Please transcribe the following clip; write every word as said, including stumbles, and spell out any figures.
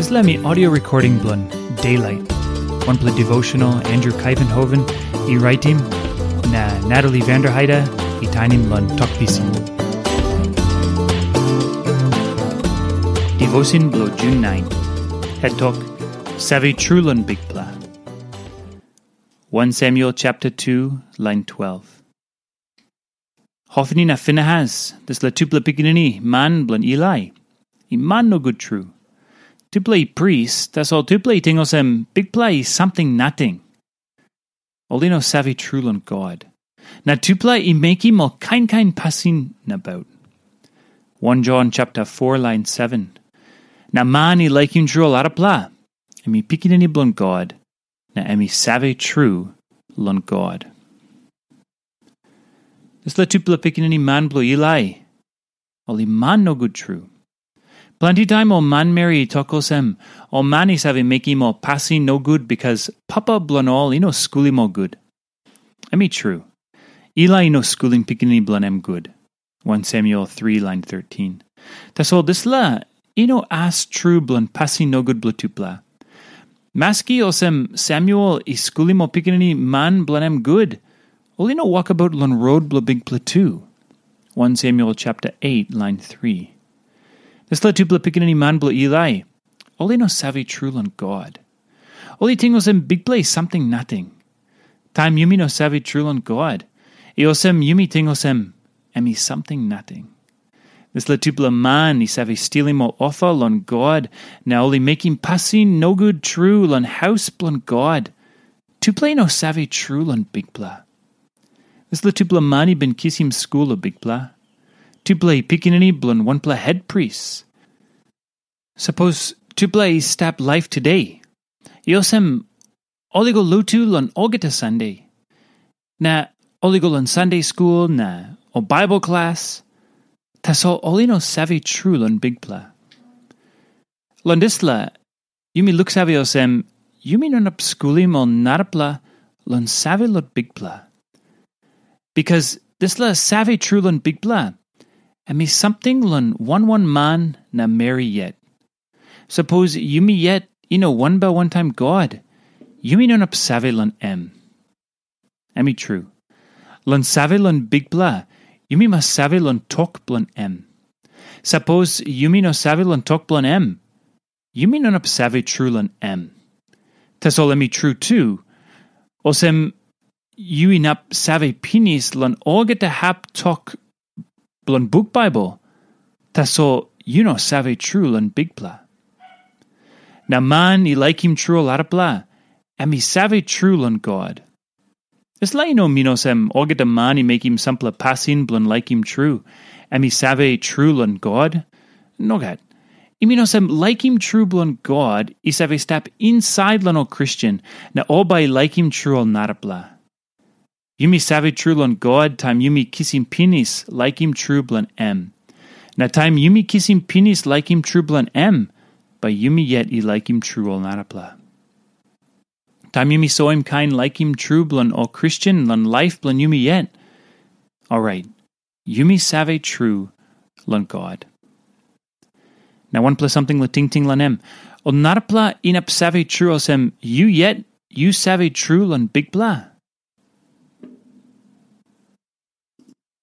Dispela mi audio recording bilong Daylight, wanpela devotional Andrew Kaivenhoven i raitim, na Natalie Vanderheide i tainim long Tok Pisin. Devotion bilong June nine. Het tok, Save Tru Long Bikpela. One Samuel chapter two, line twelve. Hofni na Finehas, dispela tupela pikinini man bilong Ilai, i man nogut tru. Tupela i pris, tasol tupela i ting olsem Bikpela i samting nating. Ol i no save tru long God. Na tupela i mekim ol kain kain pasin nabaut. One John chapter four, line seven. Na man i laikim tru ol arapela, em i pikinini bilong God, na em i save tru long God. Dispela tupela pikinini man bilong Ilai, ol i man nogut tru. Planti taim ol manmeri i tok olsem, ol man i save mekim ol pasin nogut bikas papa bilong ol i no skulim ol gut. Em i tru, Ilai i no skulim pikinini bilong em gut. One Samuel three, line thirteen. Tasol dispela i no as tru bilong pasin nogut bilong tupela. Maski olsem Samuel i skulim ol pikinini man bilong em gut, ol i no wokabaut long rot bilong Bikpela tu. One Samuel chapter eight, line three. Dispela tupela pikinini man bilong Ilai, ol i no save tru long God. Ol i ting olsem Bikpela i samting nating. Taim yumi no save tru long God, i olsem yumi ting olsem em i samting nating. Dispela tupela man i save stilim ol ofa long God, na ol i mekim pasin nogut tru long haus bilong God. Tupela i no save tru long Bikpela. Dispela tupela man i bin kisim skul long Bikpela. Tupela i pikinini bilong wanpela hetpris. Sapos tupela i stap laip tude, i olsem ol i go lotu long olgeta Sande, na ol i go long Sande skul na ol Baibel klas, tasol ol i no save tru long Bikpela. Long dispela, yumi luksave olsem, yumi no inap skulim ol narapela long save long Bikpela. Bikas dispela save tru long Bikpela, em i samting long wan wan man na meri yet. Sapos yumi yet i no wanbel wantaim God, yumi no inap save long em. Em i tru. Long save long Bikpela, yumi mas save long tok bilong em. Sapos yumi no save long tok bilong em, yumi no inap save tru long em. Tasol em i tru tu, olsem yu inap save pinis long olgeta hap tok bilong buk Baibel, tasol yu no save tru long Bikpela. Na man i laikim tru ol arapela, em i save tru long God. Dispela i no min olsem olgeta man i mekim sampela pasin bilong laikim tru, em i save tru long God. Nogat. I min olsem laikim tru bilong God i save stap insait long ol Kristen, na ol bai i laikim tru ol narapela. Yumi save tru long God taim yumi kisim pinis laikim tru bilong em. Na taim yumi kisim pinis laikim tru bilong em, bai yumi yet i laikim tru ol narapela. Taim yumi soim kain laikim tru bilong ol Kristen long laip bilong yumi yet, orait, yumi save tru long God. Na wanpela samting long tingting long em, ol narapela inap save tru olsem yu yet yu save tru long Bikpela?